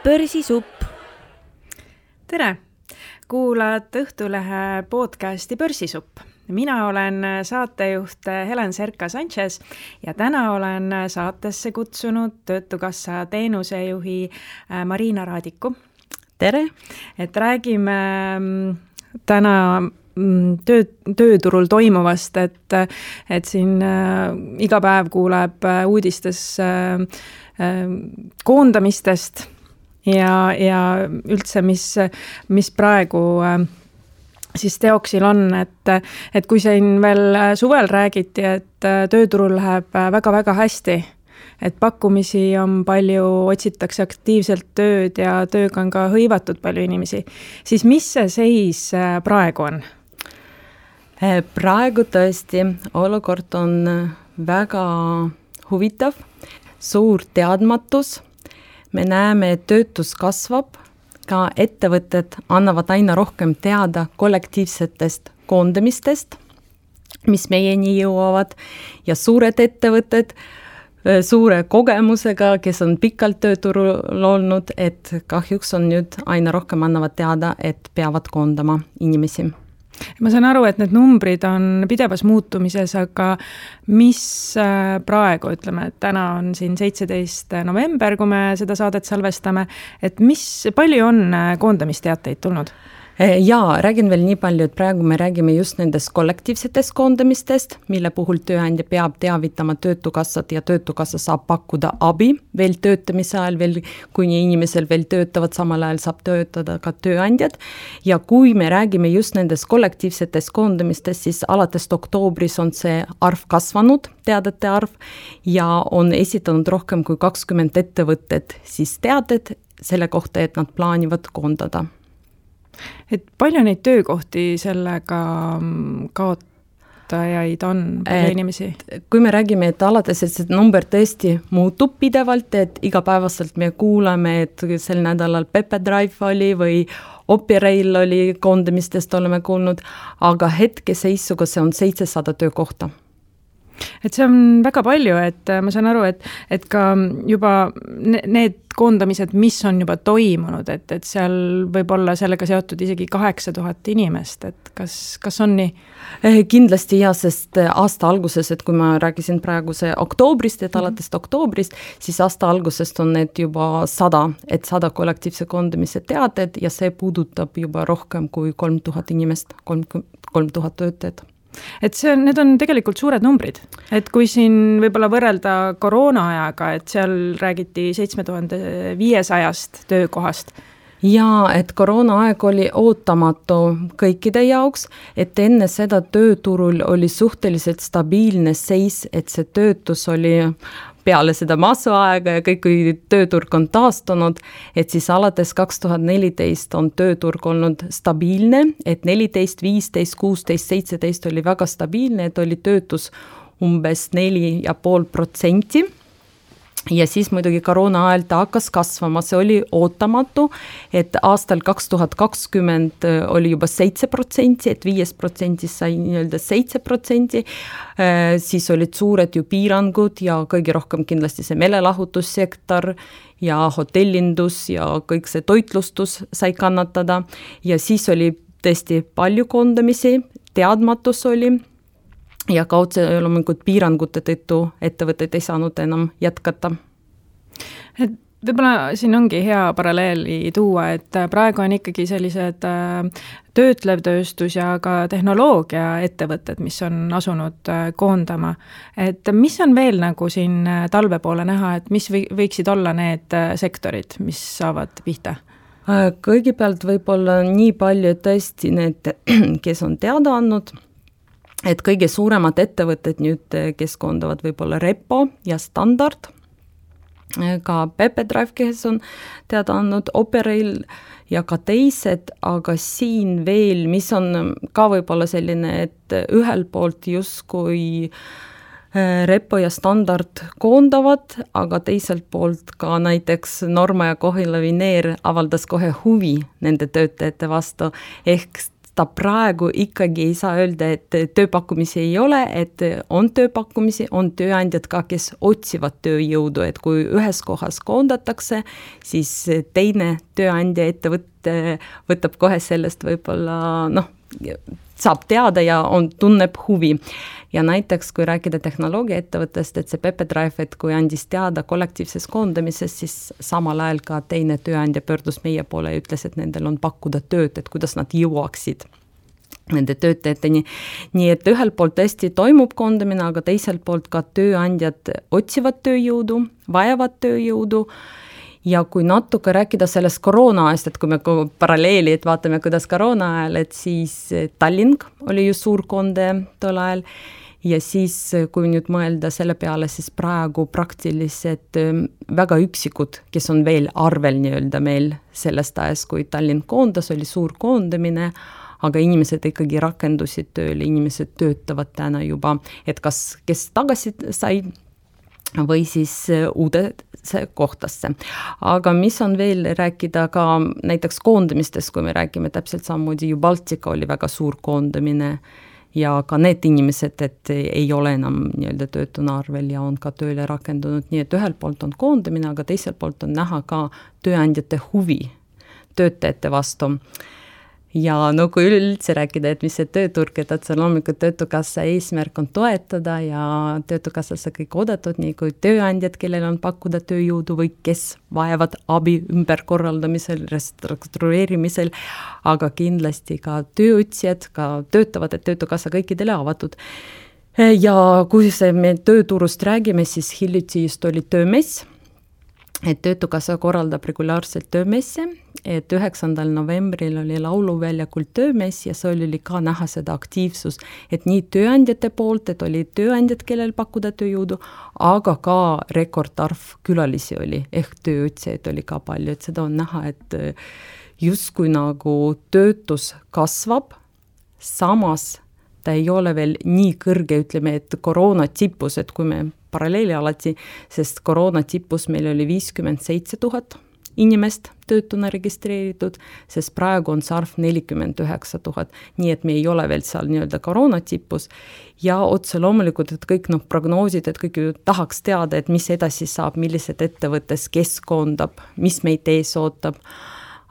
Börsisupp. Tere! Kuulad Õhtulehe podcasti Börsisupp. Mina olen saatejuht Helen Serka-Sanchez ja täna olen saatesse kutsunud Töötukassa teenusejuhi Marina Raadiku. Tere! Et räägime täna tööturul toimuvast, et siin iga päev kuuleb uudistes koondamistest ja üldse, mis praegu siis teoksil on, et kui siin veel suvel räägiti, et tööturul läheb väga-väga hästi, et pakkumisi on palju, otsitakse aktiivselt tööd ja tööga on ka hõivatud palju inimesi, siis mis see seis praegu on? Praegu tõesti olukord on väga huvitav, suur teadmatus. Me näeme, et töötus kasvab, ka ettevõtted annavad aina rohkem teada kollektiivsetest koondamistest, mis meieni jõuavad ja suured ettevõtted suure kogemusega, kes on pikalt tööturul olnud, et kahjuks on nüüd aina rohkem annavad teada, et peavad koondama inimesi. Ma saan aru, et need numbrid on pidevas muutumises, aga mis praegu, ütleme, et täna on siin 17. november, kui me seda saadet salvestame, et palju on koondamisteateid tulnud? Jaa, räägin veel nii palju, et praegu me räägime just nendest kollektiivsetest koondamistest, mille puhul tööandja peab teavitama Töötukassat ja Töötukassa saab pakkuda abi veel töötamise ajal, veel, kui inimesel veel töötavad, samal ajal saab töötada ka tööandjad. Ja kui me räägime just nendest kollektiivsetest koondamistest, siis alates oktoobris on see arv kasvanud, teadete arv, ja on esitanud rohkem kui 20 ettevõtted siis teated selle kohta, et nad plaanivad koondada. Et palju neid töökohti sellega kaotajaid on, palju inimesi? Kui me räägime, et alates, et see number tõesti muutub pidevalt, et igapäevaselt me kuulame, et sel nädalal Pepedrive oli või Operail oli koondamistest oleme kuulnud, aga hetkeseisuga see on 700 töökohta. Et see on väga palju, et ma saan aru, et ka juba need koondamised, mis on juba toimunud, et seal võib olla sellega seotud isegi 8000 inimest, et kas on nii? Kindlasti ja, sest aasta alguses, et kui ma rääkisin praegu see oktoobrist, et alates oktoobrist, siis aasta algusest on need juba 100 kollektiivse koondamise teated ja see puudutab juba rohkem kui 3000 inimest, 3000 töötajat. Et need on tegelikult suured numbrid, et kui siin võib-olla võrrelda koroona ajaga, et seal räägiti 7500 töökohast. Ja, et koroona aeg oli ootamatu kõikide jaoks, et enne seda tööturul oli suhteliselt stabiilne seis, et see töötus oli peale seda massuaega ja kõik, kui tööturg on taastunud, et siis alates 2014 on tööturg olnud stabiilne, et 14, 15, 16, 17 oli väga stabiilne, et oli töötus umbes 4,5%. Ja siis muidugi koroona ajal ta hakkas kasvama, see oli ootamatu, et aastal 2020 oli juba 7%, et 5% sai nii-öelda 7%, siis olid suured ju piirangud ja kõige rohkem kindlasti see meelelahutussektor ja hotellindus ja kõik see toitlustus sai kannatada ja siis oli tõesti palju koondamisi, teadmatus oli, ja kaudse loomulikult piirangute tõttu ettevõtted ei saanud enam jätkata. Et võib-olla siin ongi hea paralleeli tuua, et praegu on ikkagi sellised töötlev tööstus ja ka tehnoloogia ettevõtted, mis on asunud koondama. Et mis on veel nagu siin talve poole näha, et mis võiksid olla need sektorid, mis saavad pihta? Kõigepealt võib-olla nii palju tõesti need, kes on teada andnud, et kõige suuremad ettevõtted nüüd, kes koondavad võib-olla Repo ja Standard, ka Pepedrive, kes on teada andnud, Operail ja ka teised, aga siin veel, mis on ka võib-olla selline, et ühel poolt justkui Repo ja Standard koondavad, aga teiselt poolt ka näiteks Norma ja Kohila Vineer avaldas kohe huvi nende töötajate vastu, ehk ta praegu ikkagi ei saa öelda, et tööpakkumisi ei ole, et on tööpakkumisi, on tööandjad ka, kes otsivad tööjõudu, et kui ühes kohas koondatakse, siis teine tööandja ettevõte võtab kohe sellest võib-olla, saab teada ja tunneb huvi. Ja näiteks, kui rääkida tehnoloogia ettevõttest, et see Pepedrive, et kui andis teada kollektiivses koondamises, siis samal ajal ka teine tööandja pöördus meie poole ja ütles, et nendel on pakkuda tööd, et kuidas nad jõuaksid nende töötajateni. Nii et ühelt poolt tõesti toimub koondamine, aga teiselt poolt ka tööandjad otsivad tööjõudu, vajavad tööjõudu. Ja kui natuke rääkida sellest koroona ajast, et kui me paralleeli, et vaatame, kuidas koroona ajal, et siis Tallinn oli ju suur konde tol ajal ja siis, kui nüüd mõelda selle peale, siis praegu praktiliselt väga üksikud, kes on veel arvel nii-öelda meil sellest ajast, kui Tallinn koondas, oli suur koondamine, aga inimesed ikkagi rakendusid tööle, inimesed töötavad täna juba, et kes tagasi sai või siis uudesse kohtasse. Aga mis on veel rääkida ka näiteks koondamistest, kui me räägime täpselt samamoodi ju Baltika oli väga suur koondamine ja ka need inimesed, et ei ole enam nii-öelda töötuna arvel ja on ka tööle rakendunud, nii et ühelt poolt on koondamine, aga teiselt poolt on näha ka tööandjate huvi töötajate vastu. Ja kui üldse rääkida, et mis see tööturg, et otse loomulikult Töötukassa eesmärk on toetada ja Töötukassasse kõik oodatud, nii kui tööandjad, kellel on pakkuda tööjõudu või kes vajavad abi ümberkorraldamisel, restruktureerimisel, aga kindlasti ka tööotsijad, ka töötavad, et Töötukassa kõikidele avatud. Ja kui me tööturust räägime, siis hiljuti just oli töömess, et Töötukassa korraldab regulaarselt töömesse, et 9. novembril oli lauluväljakul töömess ja see oli ka näha seda aktiivsus, et nii tööandjate poolt, et oli tööandjad, kellel pakkuda tööjõudu, aga ka rekordarv külalisi oli, ehk tööotsijaid oli ka palju, et seda on näha, et justkui nagu töötus kasvab, samas ta ei ole veel nii kõrge, ütleme, et koroona tipus, et kui me paralleeli alati, sest koroona tipus meil oli 57 000 inimest töötuna registreeritud, sest praegu on see arv 49 000, nii et me ei ole veel seal nii-öelda koroona tipus ja otse loomulikult, et kõik prognoosid, et kõik ju tahaks teada, et mis edasi saab, millised ettevõttes, kes koondab, mis meid ees ootab,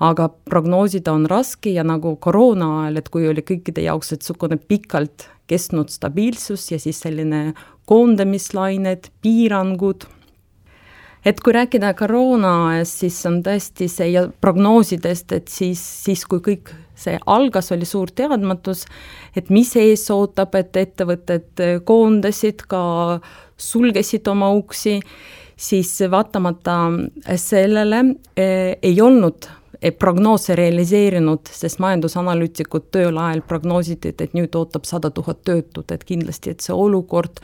aga prognoosida on raske ja nagu koroona ajal, et kui oli kõikide jaoks, et sukune pikalt kestnud stabiilsus ja siis selline koondamislained, piirangud. Et kui rääkida koroona ajast, siis on tõesti see ja prognoosidest, et siis kui kõik see algas, oli suur teadmatus, et mis ees ootab, et ettevõtted koondasid, ka sulgesid oma uksi, siis vaatamata sellele ei olnud prognoose realiseerinud, sest majandusanalüütikud tööl ajal prognoositi, et nüüd ootab 100 000 töötut, et kindlasti, et see olukord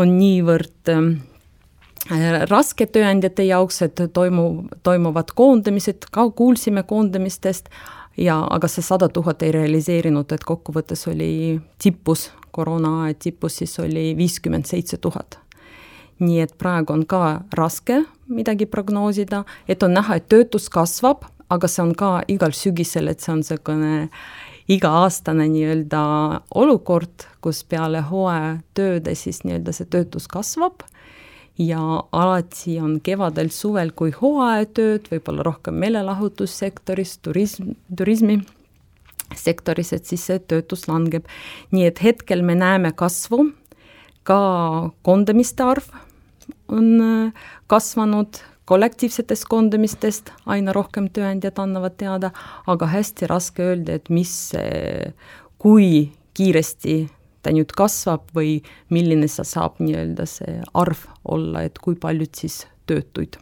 on niivõrd raske tööandjate jaoks, et toimuvad koondamised, ka kuulsime koondamistest, aga see 100 000 ei realiseerinud, et kokkuvõttes oli tipus, koroona aja tipus, siis oli 57 000. Nii et praegu on ka raske midagi prognoosida, et on näha, et töötus kasvab, aga see on ka igal sügisel, et see on selline iga-aastane nii-öelda olukord, kus peale hooaja tööde siis nii-öelda see töötus kasvab ja alati on kevadel, suvel kui hooajatööd, võib-olla rohkem meelelahutussektoris, turismi sektoris, et siis see töötus langeb. Nii et hetkel me näeme kasvu, ka koondamiste arv on kasvanud, kollektiivsetest koondamistest aina rohkem tööandjad annavad teada, aga hästi raske öelda, et kui kiiresti ta nüüd kasvab või milline see saab nii-öelda see arv olla, et kui paljud siis töötuid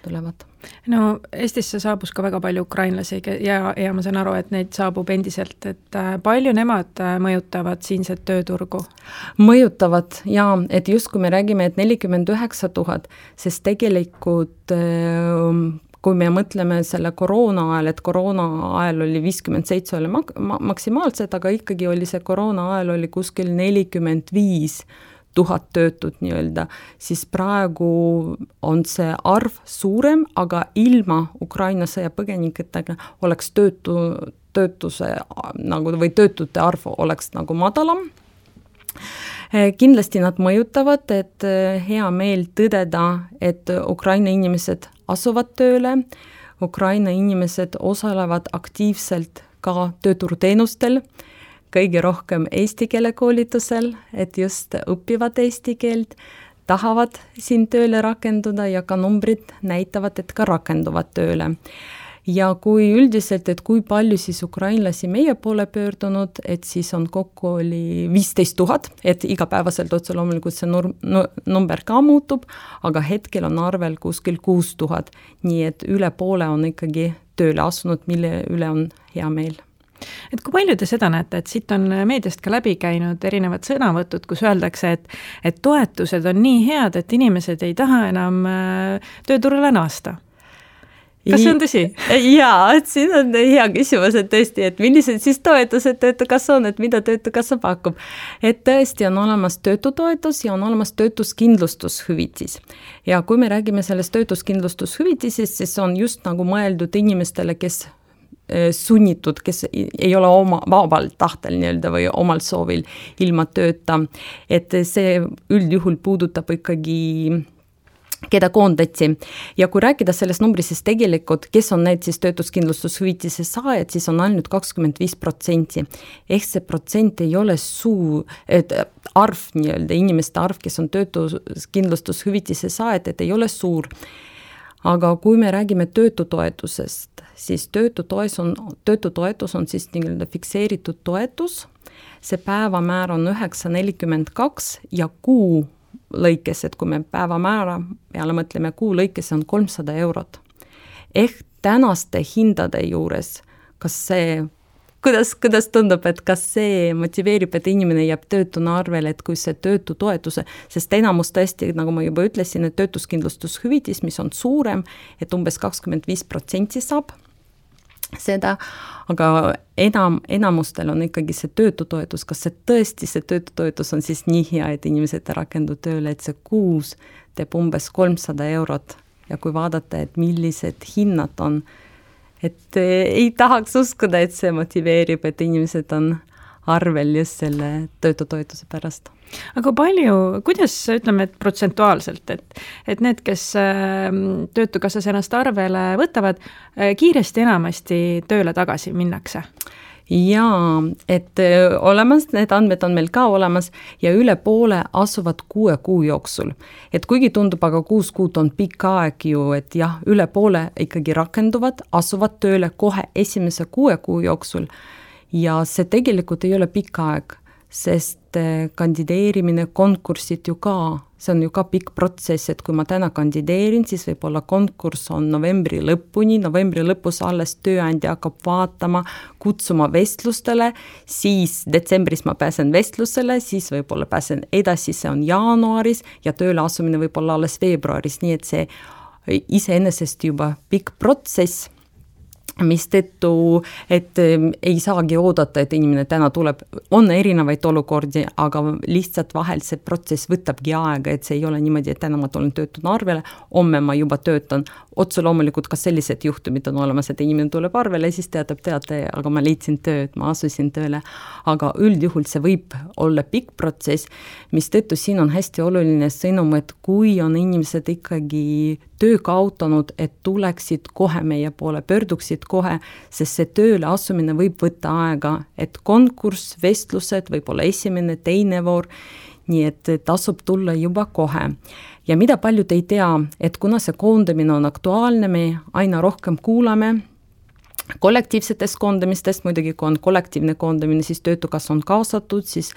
tulevad. No Eestisse saabus ka väga palju ukrainlasi ja ma saan aru, et neid saabub endiselt, et palju nemad mõjutavad siinset tööturgu? Mõjutavad ja, et just kui me räägime, et 49 000, sest tegelikult kui me mõtleme selle koroona ajal, et koroona ajal oli 57 oli maksimaalselt, aga ikkagi oli see koroona ajal oli kuskil 45 000 töötut nii-öelda, siis praegu on see arv suurem, aga ilma Ukraina sõjapõgeniketega oleks töötuse nagu või töötute arv oleks nagu madalam. Kindlasti nad mõjutavad, et hea meel tõdeda, et Ukraina inimesed asuvad tööle, Ukraina inimesed osalevad aktiivselt ka tööturuteenustel, kõige rohkem eesti keele koolitusel, et just õpivad eesti keelt, tahavad siin tööle rakenduda ja ka numbrid näitavad, et ka rakenduvad tööle. Ja kui üldiselt, et kui palju siis ukrainlasi meie poole pöördunud, et siis on kokku oli 15 000, et igapäevaselt otse loomulikult see number ka muutub, aga hetkel on arvel kuskil 6000, nii et üle poole on ikkagi tööle asunud, mille üle on hea meel. Et kui palju te seda näete, et siit on meediast ka läbi käinud erinevad sõnavõtud, kus öeldakse, et toetused on nii head, et inimesed ei taha enam tööturule naasta? Kas see on tõsi? Jaa, et siin on hea küsimus, et tõesti, et millised siis toetused töötukassa on, et mida töötukassa pakub. Et tõesti on olemas töötutoetus ja on olemas töötuskindlustushüvitis. Ja kui me räägime sellest töötuskindlustushüvitisest, siis on just nagu mõeldud inimestele, kes sunnitud, kes ei ole oma vabal tahtel nii-öelda või omal soovil ilma tööta. Et see üldjuhul puudutab ikkagi keda koondati. Ja kui rääkida sellest numbris, siis tegelikult, kes on need siis töötuskindlustushüvitise saajad, siis on ainult 25%. Ehk see protsent ei ole arv nii-öelda, inimeste arv, kes on töötuskindlustushüvitise saajad, et ei ole suur. Aga kui me räägime töötutoetusest, siis töötutoetus on siis nii-öelda fikseeritud toetus. See päevamäär on 9,42 ja kuu lõikes, et kui me päevamäära peale mõtleme, kuu lõikes on 300 eurot. Ehk tänaste hindade juures, kas see, kuidas tundub, et kas see motiveerib, et inimene jääb töötuna arvele, et kui see töötutoetuse, sest enamus tõesti, nagu ma juba ütlesin, et töötuskindlustushüvitis, mis on suurem, et umbes 25% saab seda, aga enamustel on ikkagi see töötutoetus, kas see tõesti see töötutoetus on siis nii hea, et inimesed rakendu tööle, et see kuus teeb umbes 300 eurot ja kui vaadata, et millised hinnad on, et ei tahaks uskuda, et see motiveerib, et inimesed on arvel just selle töötutoetuse pärast. Aga palju, kuidas ütleme, et protsentuaalselt, et need, kes töötukassas ennast arvele võtavad, kiiresti enamasti tööle tagasi minnakse? Jaa, et olemas, need andmed on meil ka olemas ja üle poole asuvad 6 kuu jooksul. Et kuigi tundub, aga 6 kuud on pikk aeg ju, et jah, üle poole ikkagi rakenduvad, asuvad tööle kohe esimese 6 kuu jooksul ja see tegelikult ei ole pikk aeg, sest kandideerimine, konkursid ju ka, see on ju ka pikk protsess, et kui ma täna kandideerin, siis võib-olla konkurss on novembri lõpus alles tööandja hakkab vaatama, kutsuma vestlustele, siis detsembris ma pääsen vestlusele, siis võib-olla pääsen edasi, see on jaanuaris ja tööle asumine võib-olla alles veebruaris, nii et see iseenesest juba pikk protsess, mis tõttu, et ei saagi oodata, et inimene täna tuleb, on erinevaid olukordi, aga lihtsalt vahel see protsess võtabki aega, et see ei ole niimoodi, et täna ma tulen töötuna arvele, homme ma juba töötan. Otse loomulikult ka sellised juhtumid on olemas, et inimene tuleb arvele ja siis teatab, aga ma leidsin tööd, ma asusin tööle. Aga üldjuhul see võib olla pikk protsess, mis tõttu siin on hästi oluline sõnum, et kui on inimesed ikkagi töö kaotanud, et tuleksid kohe meie poole, pöörduksid kohe, sest see tööle asumine võib võtta aega, et konkurss, vestlused, võib-olla esimene, teine voor, nii et tasub tulla juba kohe. Ja mida paljud ei tea, et kuna see koondamine on aktuaalne, me aina rohkem kuulame kollektiivsetest koondamistest, muidugi kui on kollektiivne koondamine, siis töötukass on kaasatud, siis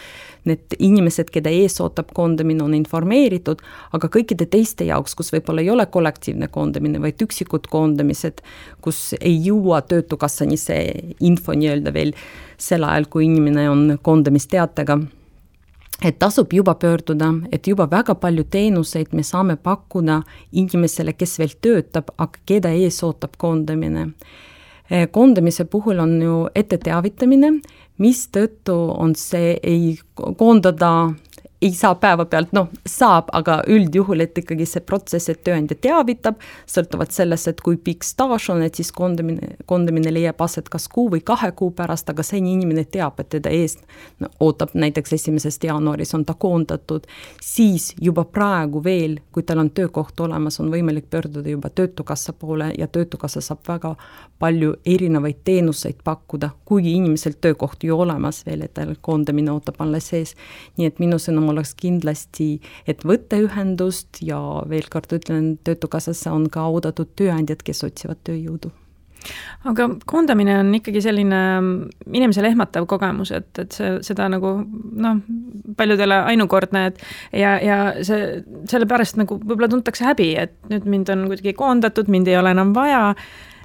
need inimesed, keda ees ootab koondamine, on informeeritud, aga kõikide teiste jaoks, kus võib-olla ei ole kollektiivne koondamine, vaid üksikud koondamised, kus ei jõua töötukassani see info nii-öelda veel sel ajal, kui inimene on koondamisteatega, et tasub juba pöörduda, et juba väga palju teenuseid me saame pakkuda inimesele, kes veel töötab, aga keda ees ootab koondamine. Koondamise puhul on ju ette teavitamine, mis tõttu on see ei koondada ei saa päevapealt, saab, aga üldjuhul, et ikkagi see protsess, et tööandja teavitab, sõltuvalt sellest, et kui pikk staaž on, et siis koondamine leiab aset kas 1 või 2 kuu pärast, aga see inimene teab, et teda eest ootab näiteks 1. jaanuaris on ta koondatud, siis juba praegu veel, kui tal on töökoht olemas, on võimalik pöörduda juba Töötukassa poole ja Töötukassa saab väga palju erinevaid teenuseid pakkuda, kuigi inimesel töökoht ju olemas veel, et tal koondamine ootab alles sees. Nii et minu sõnum oleks kindlasti, et võtta ühendust ja veel kord ütlen, Töötukassasse on ka oodatud tööandjad, kes otsivad tööjõudu. Aga koondamine on ikkagi selline inimesele ehmatav kogemus, et seda nagu paljudele ainukordne, ja sellepärast nagu võib-olla tuntakse häbi, et nüüd mind on kuidagi koondatud, mind ei ole enam vaja,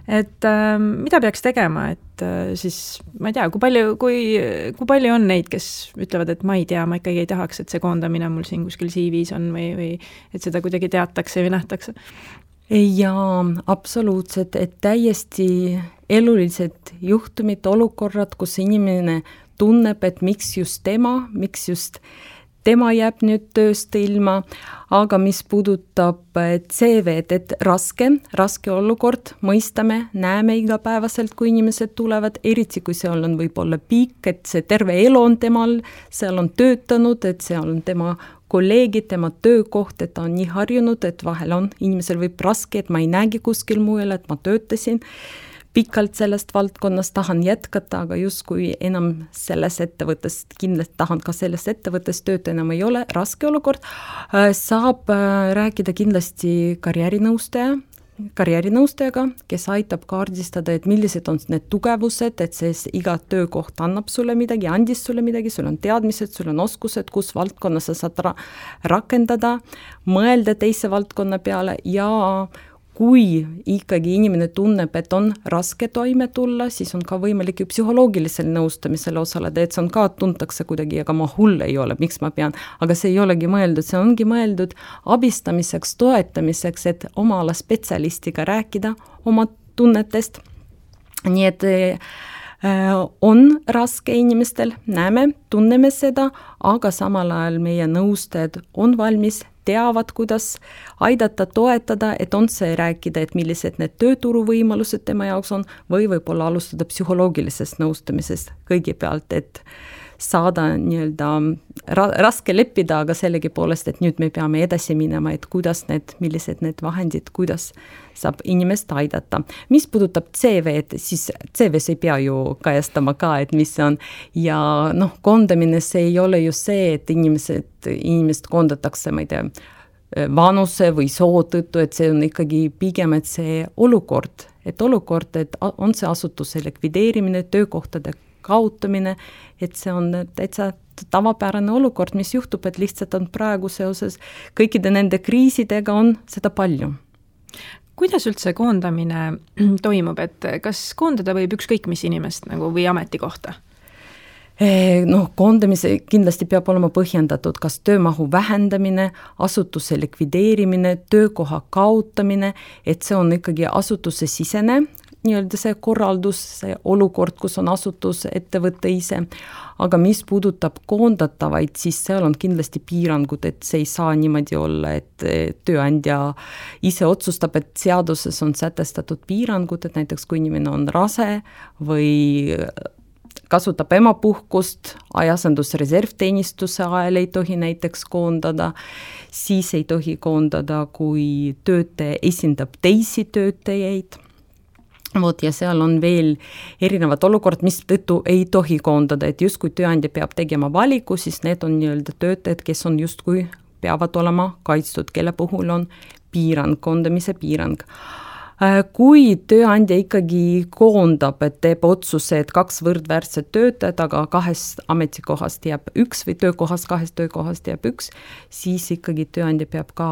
et mida peaks tegema, et siis ma ei tea, kui palju on neid, kes ütlevad, et ma ei tea, ma ikkagi ei tahaks, et see koondamine mul siin kuskil CV-s on või et seda kuidagi teatakse või nähtakse? Jaa, absoluutselt, et täiesti elulised juhtumid, olukorrad, kus inimene tunneb, et miks just tema jääb nüüd tööst ilma, aga mis puudutab CV-d, et raske olukord, mõistame, näeme igapäevaselt, kui inimesed tulevad, eriti kui seal on võib-olla pikk, et see terve elu on temal, seal on töötanud, et seal on tema kolleegid, tema töökoht, et ta on nii harjunud, et vahel on, inimesel võib raske, et ma ei näegi kuskil mujal, et ma töötasin pikalt sellest valdkonnast, tahan jätkata, aga justkui enam selles ettevõttes, kindlasti tahan ka selles ettevõttes tööta enam ei ole, raske olukord, saab rääkida kindlasti karjäärinõustajaga, kes aitab kaardistada, et millised on need tugevused, et see iga töökoht annab sulle midagi, andis sulle midagi, sul on teadmised, sul on oskused, kus valdkonnas sa saad rakendada, mõelda teise valdkonna peale ja kui ikkagi inimene tunneb, et on raske toime tulla, siis on ka võimalik ju psühholoogilisel nõustamisel osaleda, et see on ka tuntakse kuidagi, aga ma hull ei ole, miks ma pean, aga see ei olegi mõeldud, see ongi mõeldud abistamiseks, toetamiseks, et oma ala spetsialistiga rääkida oma tunnetest. Nii et on raske inimestel, näeme, tunneme seda, aga samal ajal meie nõustajad on valmis, teavad, kuidas aidata, toetada, et on see rääkida, et millised need tööturuvõimalused tema jaoks on, või võib-olla alustada psühholoogilisest nõustamisest kõigepealt, et saada nii-öelda raske leppida, aga sellegipoolest, et nüüd me peame edasi minema, et kuidas millised need vahendid, kuidas saab inimest aidata. Mis puudutab CV-d, siis CV-s ei pea ju kajastama ka, et mis on, ja koondamine, see ei ole ju see, et inimest koondatakse, ma ei tea, vanuse või soo tõttu, et see on ikkagi pigem, et see olukord, et on see asutuse likvideerimine, töökohtade kaotamine, et see on täitsa tavapärane olukord, mis juhtub, et lihtsalt on praegu seoses kõikide nende kriisidega on seda palju. Kuidas üldse koondamine toimub, et kas koondada võib ükskõik mis inimest või ametikohta? Koondamise kindlasti peab olema põhjendatud, kas töömahu vähendamine, asutuse likvideerimine, töökoha kaotamine, et see on ikkagi asutuse sisene, nii-öelda see korraldus, see olukord, kus on asutus, ettevõte ise, aga mis puudutab koondatavaid, siis seal on kindlasti piirangud, et see ei saa niimoodi olla, et tööandja ise otsustab, et seaduses on sätestatud piirangud, et näiteks kui inimene on rase või kasutab emapuhkust, ajasendusreservteenistuse ajal ei tohi näiteks koondada, siis ei tohi koondada, kui töötaja esindab teisi töötajaid. Ja seal on veel erinevad olukord, mis tõttu ei tohi koondada, et just kui tööandja peab tegema valiku, siis need on nii-öelda töötajad, kes on justkui peavad olema kaitstud, kelle puhul on piirang, koondamise piirang. Kui tööandja ikkagi koondab, et teeb otsuse, et 2 võrdväärset töötajat, aga 2 ametikohast jääb 1 või 2 töökohast jääb 1, siis ikkagi tööandja peab ka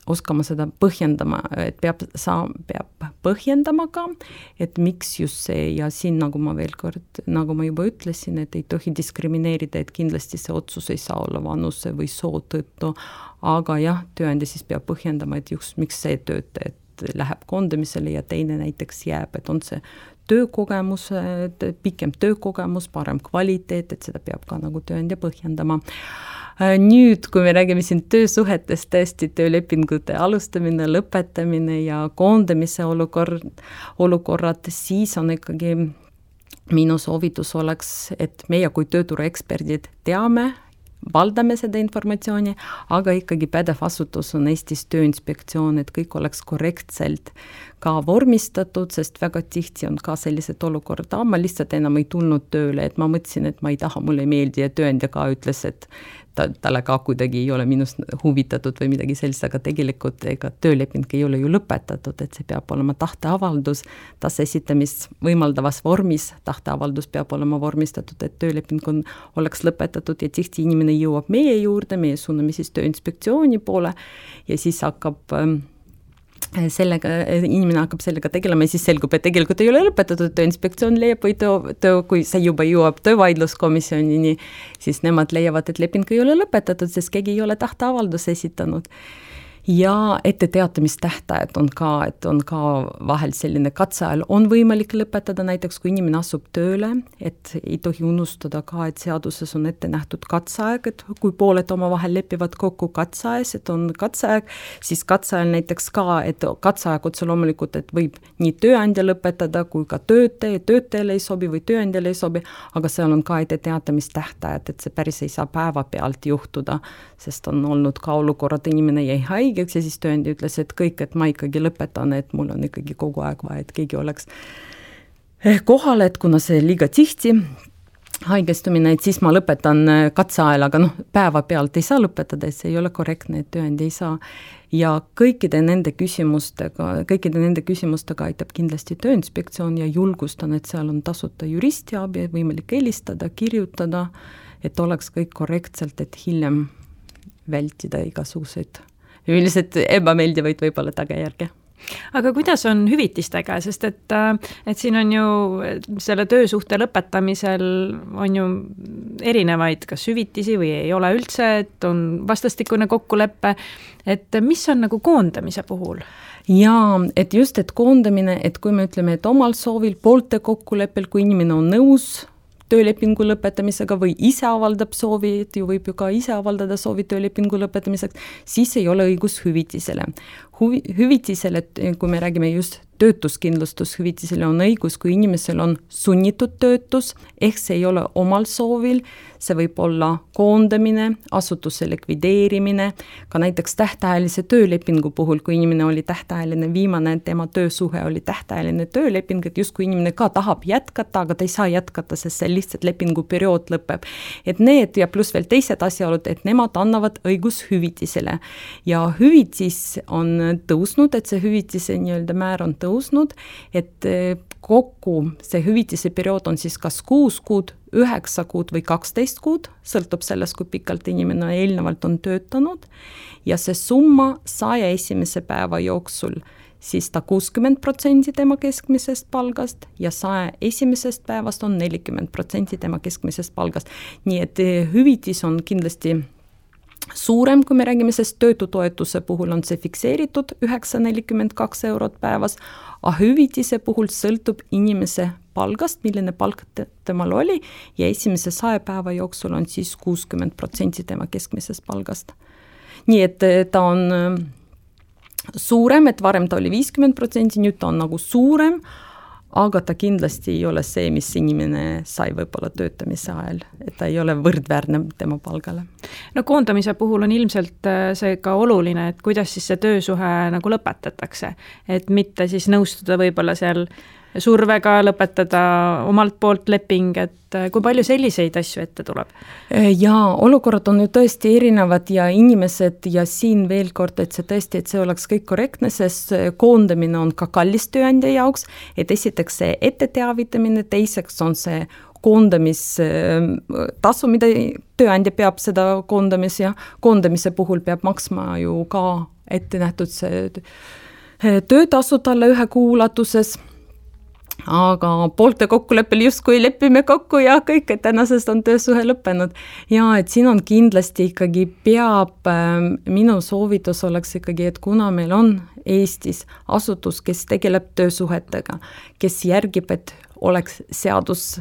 oskama seda põhjendama, et peab põhjendama ka, et miks just see, ja siin nagu ma juba ütlesin, et ei tohi diskrimineerida, et kindlasti see otsus ei saa olla vanuse või soo tõttu, aga jah, tööandja siis peab põhjendama, et just miks see töötaja läheb koondamisele ja teine näiteks jääb, et on see töökogemus, pikem töökogemus, parem kvaliteet, et seda peab ka nagu tööandja põhjendama. Nüüd, kui me räägime siin töösuhetest, tõesti töölepingute alustamine, lõpetamine ja koondamise olukorrad, siis on ikkagi minu soovitus oleks, et meie kui tööturueksperdid teame, valdame seda informatsiooni, aga ikkagi pädev asutus on Eestis Tööinspektsioon, et kõik oleks korrektselt ka vormistatud, sest väga tihti on ka sellised olukorda, ma lihtsalt enam ei tulnud tööle, et ma mõtlesin, et ma ei taha, mulle ei meeldi ja tööandja ka ütles, et talle ka kuidagi ei ole minust huvitatud või midagi sellist, aga tegelikult ega tööleping ei ole ju lõpetatud, et see peab olema tahteavaldus, taasesitamist võimaldavas vormis, tahteavaldus peab olema vormistatud, et tööleping oleks lõpetatud ja tihti inimene jõuab meie juurde, meie suuname siis Tööinspektsiooni poole ja siis inimene hakkab sellega tegelema ja siis selgub, et tegelikult ei ole lõpetatud, Tööinspektsioon leiab või kui see juba jõuab töövaidluskomisjonini, siis nemad leiavad, et leping ei ole lõpetatud, sest keegi ei ole tahteavaldus esitanud. Ja etteteatamistähtajad on ka vahel selline katseajal on võimalik lõpetada, näiteks kui inimene asub tööle, et ei tohi unustada ka, et seaduses on ette nähtud katseaeg, et kui pooled omavahel lepivad kokku katseajas, et on katseaeg, siis katseajal näiteks ka, et katseaeg otse loomulikult, et võib nii tööandja lõpetada kui ka töötajale ei sobi või tööandjale ei sobi, aga seal on ka etteteatamistähtajad, et see päris ei saa päeva pealt juhtuda, sest on olnud ka olukorrad, inimene jäi haige, ja siis tööandja ütles, et kõik, et ma ikkagi lõpetan, et mul on ikkagi kogu aeg vaja, et keegi oleks kohal, et kuna see liiga tihti haigestumine, et siis ma lõpetan katseajal, aga päeva pealt ei saa lõpetada, et see ei ole korrektne, et tööandja ei saa. Ja kõikide nende küsimustega aitab kindlasti Tööinspektsioon ja julgustan, et seal on tasuta juristiabi, võimalik helistada, kirjutada, et oleks kõik korrektselt, et hiljem vältida igasuguseid üldiselt ebameeldivaid võib-olla tagajärge. Aga kuidas on hüvitistega, sest et siin on ju selle töösuhte lõpetamisel on ju erinevaid, kas hüvitisi või ei ole üldse, et on vastastikune kokkulepe, et mis on nagu koondamise puhul? Jaa, et just, et koondamine, et kui me ütleme, et omal soovil poolte kokkuleppel, kui inimene on nõus töölepingu lõpetamisega või ise avaldab soovi, et ju võib ju ka ise avaldada soovi töölepingu lõpetamiseks, siis ei ole õigus hüvitisele. Hüvitisele, kui me räägime just töötuskindlustushüvitisele, on õigus, kui inimesel on sunnitud töötus, ehk see ei ole omal soovil, see võib olla koondamine, asutuse likvideerimine, ka näiteks tähtajalise töölepingu puhul, kui inimene oli tähtajaline, viimane tema töösuhe oli tähtajaline tööleping, et just kui inimene ka tahab jätkata, aga ta ei saa jätkata, sest see lihtsalt lepinguperiood lõpeb. Et need ja pluss veel teised asjaolud, et nemad annavad õigus hüvitisele. Ja hüvitis on tõusnud, et see hüvitise nii-öelda määr on tõusnud, et kokku see hüvitise periood on siis kas 6 kuud, 9 kuud või 12 kuud, sõltub sellest, kui pikalt inimene eelnevalt on töötanud ja see summa 101. päeva jooksul siis ta 60% tema keskmisest palgast ja 101. päevast on 40% tema keskmisest palgast. Nii et hüvitis on kindlasti suurem, kui me räägime, sest töötutoetuse puhul on see fikseeritud 9,42 eurot päevas, aga hüvitise puhul sõltub inimese palgast, milline palk temal oli ja esimese 100 päeva jooksul on siis 60% tema keskmisest palgast. Nii et ta on suurem, et varem ta oli 50%, nüüd ta on nagu suurem, aga ta kindlasti ei ole see, mis inimene sai võib-olla töötamise ajal, et ta ei ole võrdväärne tema palgale. No koondamise puhul on ilmselt see ka oluline, et kuidas siis see töösuhe nagu lõpetatakse, et mitte siis nõustuda võib-olla seal survega lõpetada omalt poolt leping, et kui palju selliseid asju ette tuleb? Jaa, olukorrad on ju tõesti erinevad ja inimesed ja siin veel kord, et see oleks kõik korrektne, sest koondamine on ka kallis tööandja jaoks, et esiteks see etteteavitamine, teiseks on see koondamistasu, mida tööandja peab seda koondamise puhul peab maksma ju ka ette nähtud see töötasu talle ühe kuu ulatuses, aga poolte kokkuleppel justkui lepime kokku ja kõik, et tänasest on töösuhe lõppenud. Ja et siin on kindlasti ikkagi minu soovitus oleks ikkagi, et kuna meil on Eestis asutus, kes tegeleb töösuhetega, kes järgib, et oleks seaduse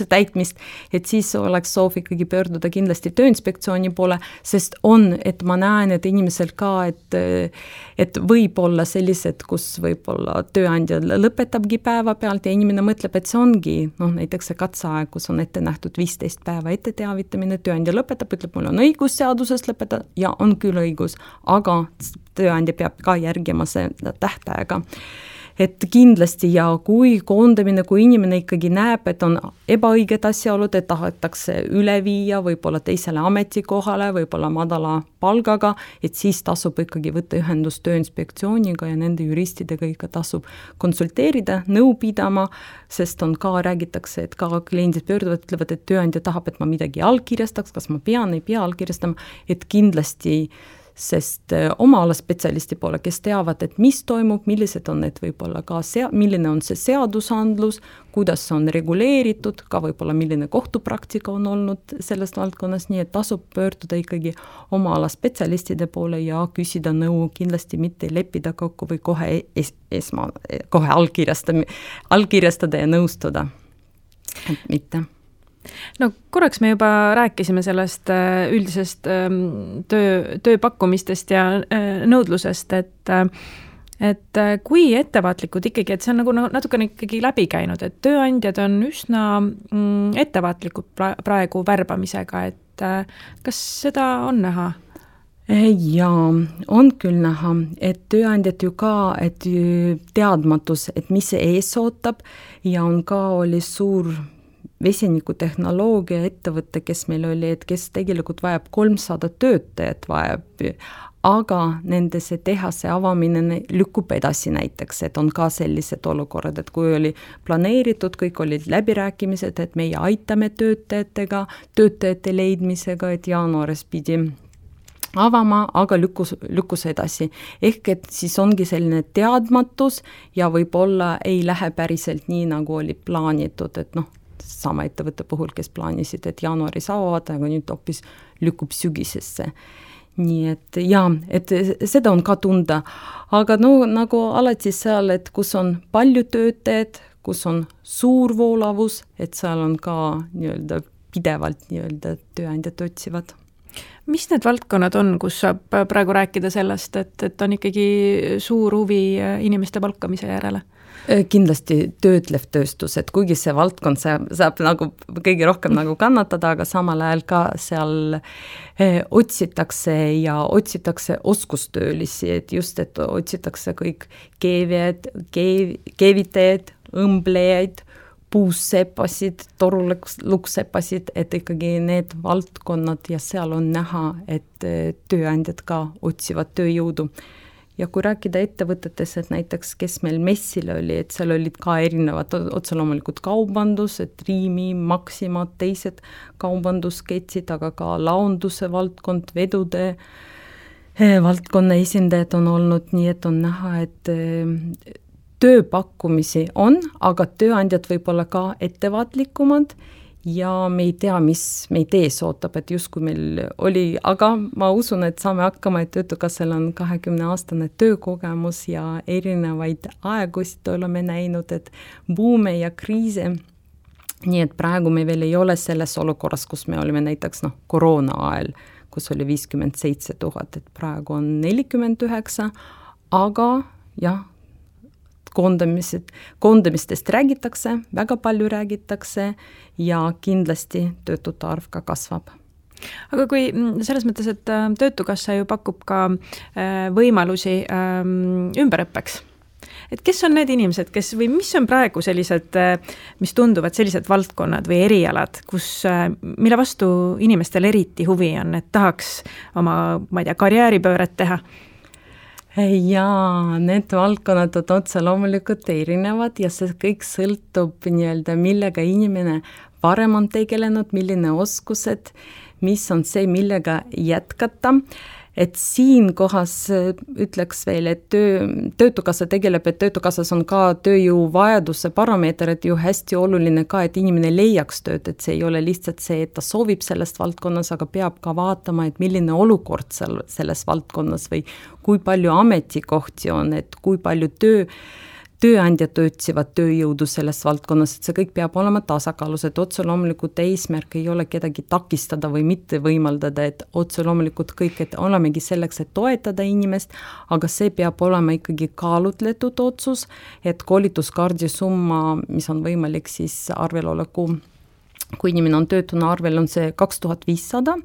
täitmist, et siis oleks soov ikkagi pöörduda kindlasti Tööinspektsiooni poole, sest et ma näen, et inimesel ka, et võib olla sellised, kus võib-olla tööandja lõpetabki päeva pealt ja inimene mõtleb, et see ongi, näiteks see katseaeg, kus on ette nähtud 15 päeva ette teavitamine, tööandja lõpetab, ütleb, mul on õigus seadusest lõpetada ja on küll õigus, aga tööandja peab ka järgima seda tähtaega. Et kindlasti ja kui koondamine, kui inimene ikkagi näeb, et on ebaõiged asjaolud, et tahetakse üle viia võib-olla teisele ametikohale, võib-olla madala palgaga, et siis tasub ikkagi võtta ühendust Tööinspektsiooniga ja nende juristidega ikka tasub konsulteerida, nõu pidama, sest räägitakse, et ka kliendid pöörduvad, ütlevad, et tööandja tahab, et ma midagi allkirjastaks, kas ma ei pea allkirjastama, et kindlasti sest oma ala spetsialisti poole, kes teavad, et mis toimub, millised on need võib-olla ka milline on see seadusandlus, kuidas on reguleeritud, ka võib-olla milline kohtupraktika on olnud selles valdkonnas, nii et tasub pöörduda ikkagi oma ala spetsialistide poole ja küsida nõu, kindlasti mitte leppida kokku või kohe allkirjastada ja nõustuda, et mitte. No korraks me juba rääkisime sellest üldisest tööpakkumistest ja nõudlusest, et kui ettevaatlikud ikkagi, et see on nagu natukene ikkagi läbi käinud, et tööandjad on üsna ettevaatlikud praegu värbamisega, et kas seda on näha? Jaa, on küll näha, et tööandjad ju ka, et teadmatus, et mis see ees ootab ja on ka oli suur vesinikutehnoloogia ettevõte, kes meil oli, et kes tegelikult vajab 300 töötajat vajab, aga nende see tehase avamine lükkub edasi näiteks, et on ka sellised olukorrad, et kui oli planeeritud, kõik olid läbirääkimised, et meie aitame töötajate leidmisega, et jaanuaris pidi avama, aga lükkus edasi. Ehk et siis ongi selline teadmatus ja võib-olla ei lähe päriselt nii, nagu oli plaanitud, et sama ettevõtte puhul, kes plaanisid, et jaanuaris avavad, aga nüüd hoopis lükkub sügisesse. Nii et et seda on ka tunda, aga nagu alati seal, et kus on palju töötajad, kus on suur voolavus, et seal on ka pidevalt tööandjad otsivad. Mis need valdkonnad on, kus saab praegu rääkida sellest, et on ikkagi suur huvi inimeste palkamise järele? Kindlasti töötlev tööstus, et kuigi see valdkond saab nagu kõige rohkem nagu kannatada, aga samal ajal ka seal otsitakse oskustöölisi, et just, et otsitakse kõik keevitajad, õmblejaid, puussepasid, toruluksepasid, et ikkagi need valdkonnad ja seal on näha, et tööandjad ka otsivad tööjõudu. Ja kui rääkida ettevõtetes, et näiteks kes meil messil oli, et seal olid ka erinevad otseloomulikud kaubandus, et Riimi, Maxima, teised kaubandusketsid, aga ka launduse valdkond, vedude valdkonna esindajad on olnud, nii et on näha, et tööpakkumisi on, aga tööandjad võib olla ka ettevaatlikumad ja me ei tea, mis meid ees ootab, et just kui meil oli, aga ma usun, et saame hakkama, et Töötukassal on 20-aastane töökogemus ja erinevaid aegusid oleme näinud, et buume ja kriise. Nii et praegu me veel ei ole selles olukorras, kus me olime näiteks koroona ajal, kus oli 57 000, et praegu on 49, aga jah, koondamistest räägitakse, väga palju räägitakse ja kindlasti töötute arv ka kasvab. Aga kui selles mõttes, et Töötukassa ju pakub ka võimalusi ümberõppeks, et kes on need inimesed, või mis on praegu sellised, mis tunduvad sellised valdkonnad või erialad, mille vastu inimestel eriti huvi on, et tahaks oma, karjääripööret teha? Jaa, need valdkonnad on otse loomulikult erinevad ja see kõik sõltub millega inimene varem on tegelenud, milline oskused, mis on see, millega jätkata. et siin kohas ütleks veel, et töötukassa tegeleb, et töötukassas on ka tööjõuvajaduse parameeter, et ju hästi oluline ka, et inimene leiaks tööd, et see ei ole lihtsalt see, et ta soovib sellest valdkonnas, aga peab ka vaatama, et milline olukord selles valdkonnas või kui palju ametikohti on, et kui palju tööandjad otsivad tööjõudu selles valdkonnas, et see kõik peab olema tasakaalus, et otse loomulikult eesmärk ei ole kedagi takistada või mitte võimaldada, et otse loomulikult kõik, et olemegi selleks, et toetada inimest, aga see peab olema ikkagi kaalutletud otsus, et koolituskaardi summa, mis on võimalik siis arveloleku, kui inimene on töötuna arvel, on see 2500,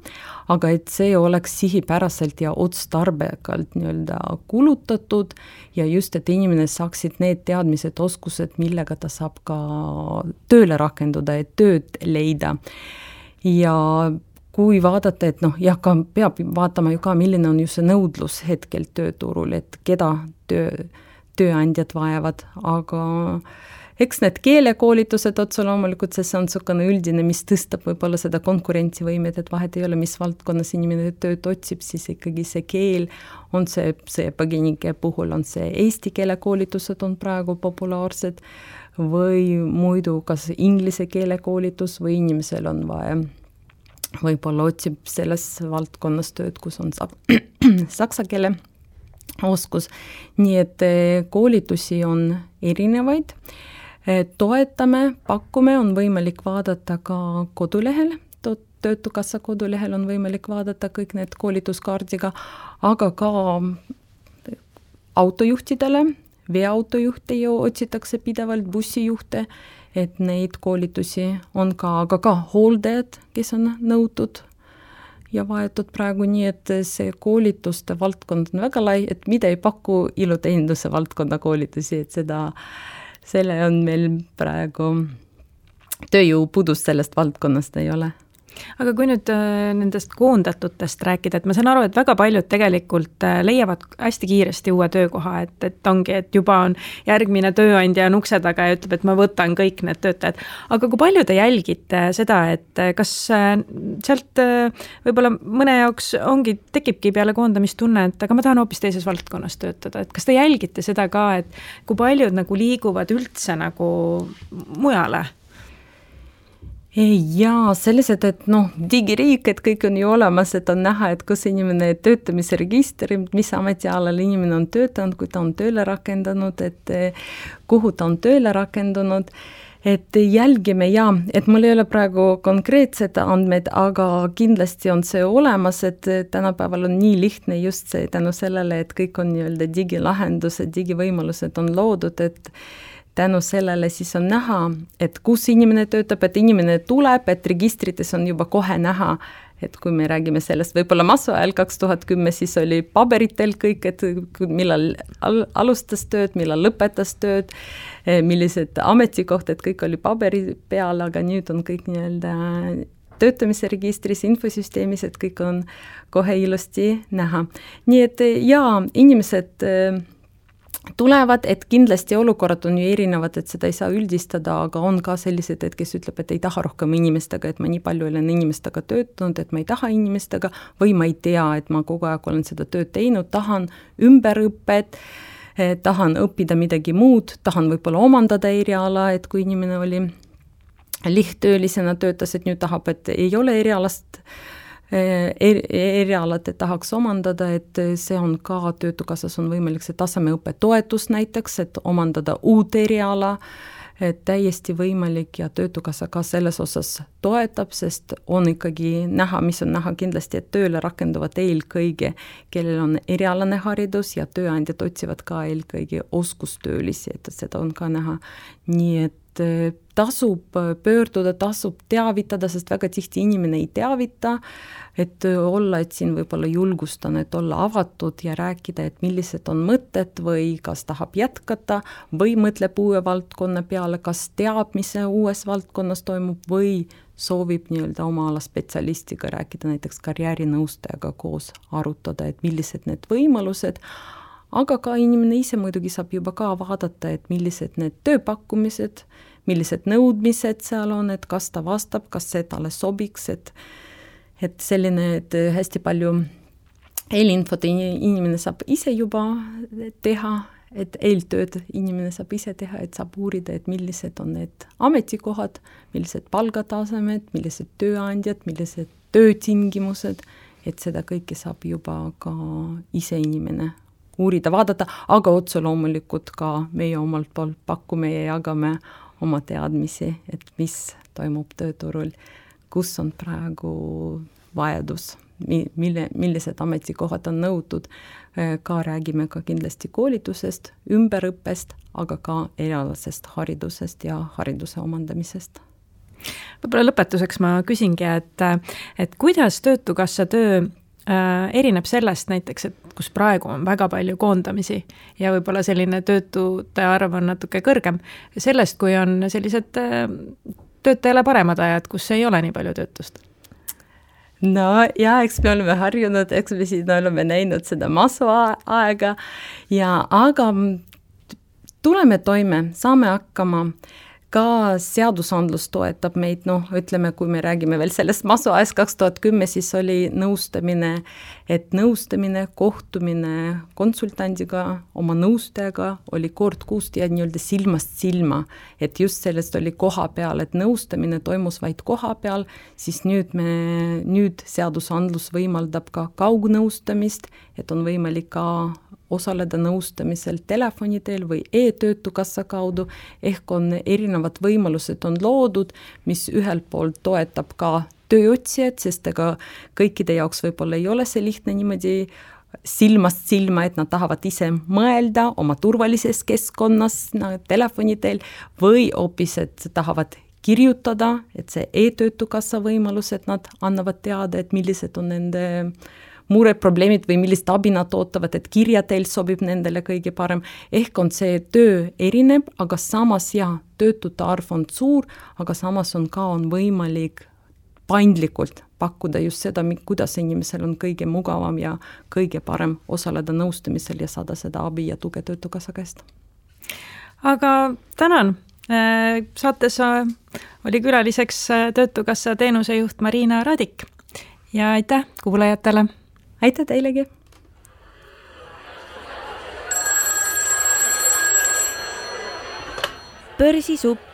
aga et see oleks sihipäraselt ja otstarbekalt nii-öelda kulutatud ja just, et inimene saaksid need teadmised, oskused, millega ta saab ka tööle rakenduda, et tööd leida. Ja kui vaadata, et peab vaatama ju ka, milline on ju see nõudlus hetkel tööturul, et keda tööandjad vajavad, aga eks need keelekoolitused otse loomulikult, see on niisugune üldine, mis tõstab võib-olla seda konkurentsivõimet, et vahet ei ole, mis valdkonnas inimene tööd otsib, siis ikkagi see keel on see põgenike puhul on see eesti keele koolitused on praegu populaarsed või muidu kas inglise keele koolitus või inimesel on vaja, võib-olla otsib selles valdkonnas tööd, kus on saksa keele oskus, nii et koolitusi on erinevaid. Toetame, pakume, on võimalik vaadata ka kodulehel, töötukassa kodulehel on võimalik vaadata kõik need koolituskaardiga, aga ka autojuhtidele, veoautojuhte ju otsitakse pidevalt, bussijuhte, et neid koolitusi on ka, aga ka hooldajad, kes on nõutud ja vaetud praegu nii, et see koolituste valdkond on väga lai, et mida ei paku iluteeninduse valdkonna koolitusi, et selle on meil praegu tööjõupudus sellest valdkonnast ei ole. Aga kui nüüd nendest koondatutest rääkida, et ma saan aru, et väga paljud tegelikult leiavad hästi kiiresti uue töökoha, et ongi, et juba on järgmine tööandja on ukse taga ja ütleb, et ma võtan kõik need töötajad. Aga kui palju te jälgite seda, et kas sealt võib-olla mõne jaoks tekibki peale koondamistunne, et aga ma tahan hoopis teises valdkonnas töötada, et kas te jälgite seda ka, et kui paljud nagu liiguvad üldse nagu mujale? Jaa, sellised, et digiriik, et kõik on ju olemas, et on näha, et kus inimene töötamise registri, mis ametialal inimene on töötanud, kui ta on tööle rakendanud, et kuhu ta on tööle rakendunud, et jälgime et mul ei ole praegu konkreetsed andmed, aga kindlasti on see olemas, et tänapäeval on nii lihtne just see tänu sellele, et kõik on nii-öelda digilahendused, digivõimalused on loodud, et tänu sellele siis on näha, et kus inimene töötab, et inimene tuleb, et registrites on juba kohe näha, et kui me räägime sellest võib-olla masu ajal 2010, siis oli paberitel kõik, et millal alustas tööd, millal lõpetas tööd, millised ametikoht, et kõik oli paberi peal, aga nüüd on kõik nii-öelda töötamise registris, infosüsteemis, et kõik on kohe ilusti näha. Nii et inimesed tulevad, et kindlasti olukorrad on ju erinevad, et seda ei saa üldistada, aga on ka sellised, et kes ütleb, et ei taha rohkem inimestega, et ma nii palju olen inimestega töötanud, et ma ei taha inimestega või ma ei tea, et ma kogu aeg olen seda tööd teinud, tahan ümberõppet, tahan õppida midagi muud, tahan võib-olla omandada eriala, et kui inimene oli lihttöölisena töötas, et nüüd tahab, et ei ole erialad, et tahaks omandada, et see on ka töötukassas on võimalik see tasemeõppe toetus näiteks, et omandada uut eriala, et täiesti võimalik ja töötukassa ka selles osas toetab, sest on ikkagi näha, mis on näha kindlasti, et tööle rakenduvad eelkõige, kellel on erialane haridus ja tööandjad otsivad ka eelkõige oskustöölisi, et seda on ka näha. Nii et tasub pöörduda, tasub teavitada, sest väga tihti inimene ei teavita, et olla, et siin võib-olla julgustan, et olla avatud ja rääkida, et millised on mõtted või kas tahab jätkata või mõtleb uue valdkonna peale, kas teab, mis uues valdkonnas toimub või soovib nii-öelda oma ala spetsialistiga rääkida, näiteks karjäärinõustajaga koos arutada, et millised need võimalused, aga ka inimene ise muidugi saab juba ka vaadata, et millised need tööpakkumised, millised nõudmised seal on, et kas ta vastab, kas see talle sobiks, et selline, et hästi palju eelinfot inimene saab ise juba teha, et eeltööd inimene saab ise teha, et saab uurida, et millised on need ametikohad, millised palgatasemed, millised tööandjad, millised töötingimused, et seda kõike saab juba ka ise inimene uurida, vaadata, aga otse loomulikult ka meie omalt poolt pakume ja jagame oma teadmisi, et mis toimub tööturul, kus on praegu vajadus, millised ametikohad on nõutud, ka räägime ka kindlasti koolitusest, ümberõppest, aga ka erialasest haridusest ja hariduse omandamisest. Võib-olla lõpetuseks ma küsingi, et kuidas Töötukassa töö erineb sellest näiteks, et kus praegu on väga palju koondamisi ja võib-olla selline töötute arv on natuke kõrgem, sellest, kui on sellised töötajale paremad ajad, kus ei ole nii palju töötust? No ja, eks me oleme harjunud, eks me siin oleme näinud seda masu-aega, aga tuleme toime, saame hakkama, ka seadusandlus toetab meid, ütleme, kui me räägime veel sellest masu-ajast 2010, siis oli nõustamine, kohtumine konsultandiga, oma nõustajaga oli kord kuust ja nii-öelda silmast silma, et just sellest oli koha peal, et nõustamine toimus vaid koha peal, siis nüüd seadusandlus võimaldab ka kaugnõustamist, et on võimalik ka osaleda nõustamisel telefoni teel või e-töötukassa kaudu, ehk on erinevad võimalused on loodud, mis ühelt poolt toetab ka tööotsijad, sest ega kõikide jaoks võib-olla ei ole see lihtne niimoodi silmast silma, et nad tahavad ise mõelda oma turvalises keskkonnas telefoni teel või hoopis, et tahavad kirjutada, et see e-töötukassa võimalus, et nad annavad teada, et millised on nende mureprobleemid või millist abi nad ootavad, et kirja teil sobib nendele kõige parem. Ehk on see töö erineb, aga samas töötute arv on suur, aga samas on võimalik paindlikult pakkuda just seda, kuidas inimesel on kõige mugavam ja kõige parem osaleda nõustamisel ja saada seda abi ja tuge Töötukassa käest. Aga tänan! Saates oli külaliseks Töötukassa teenusejuht Marina Radik ja aitäh kuulajatele! Aitäh teilegi! Börsisupp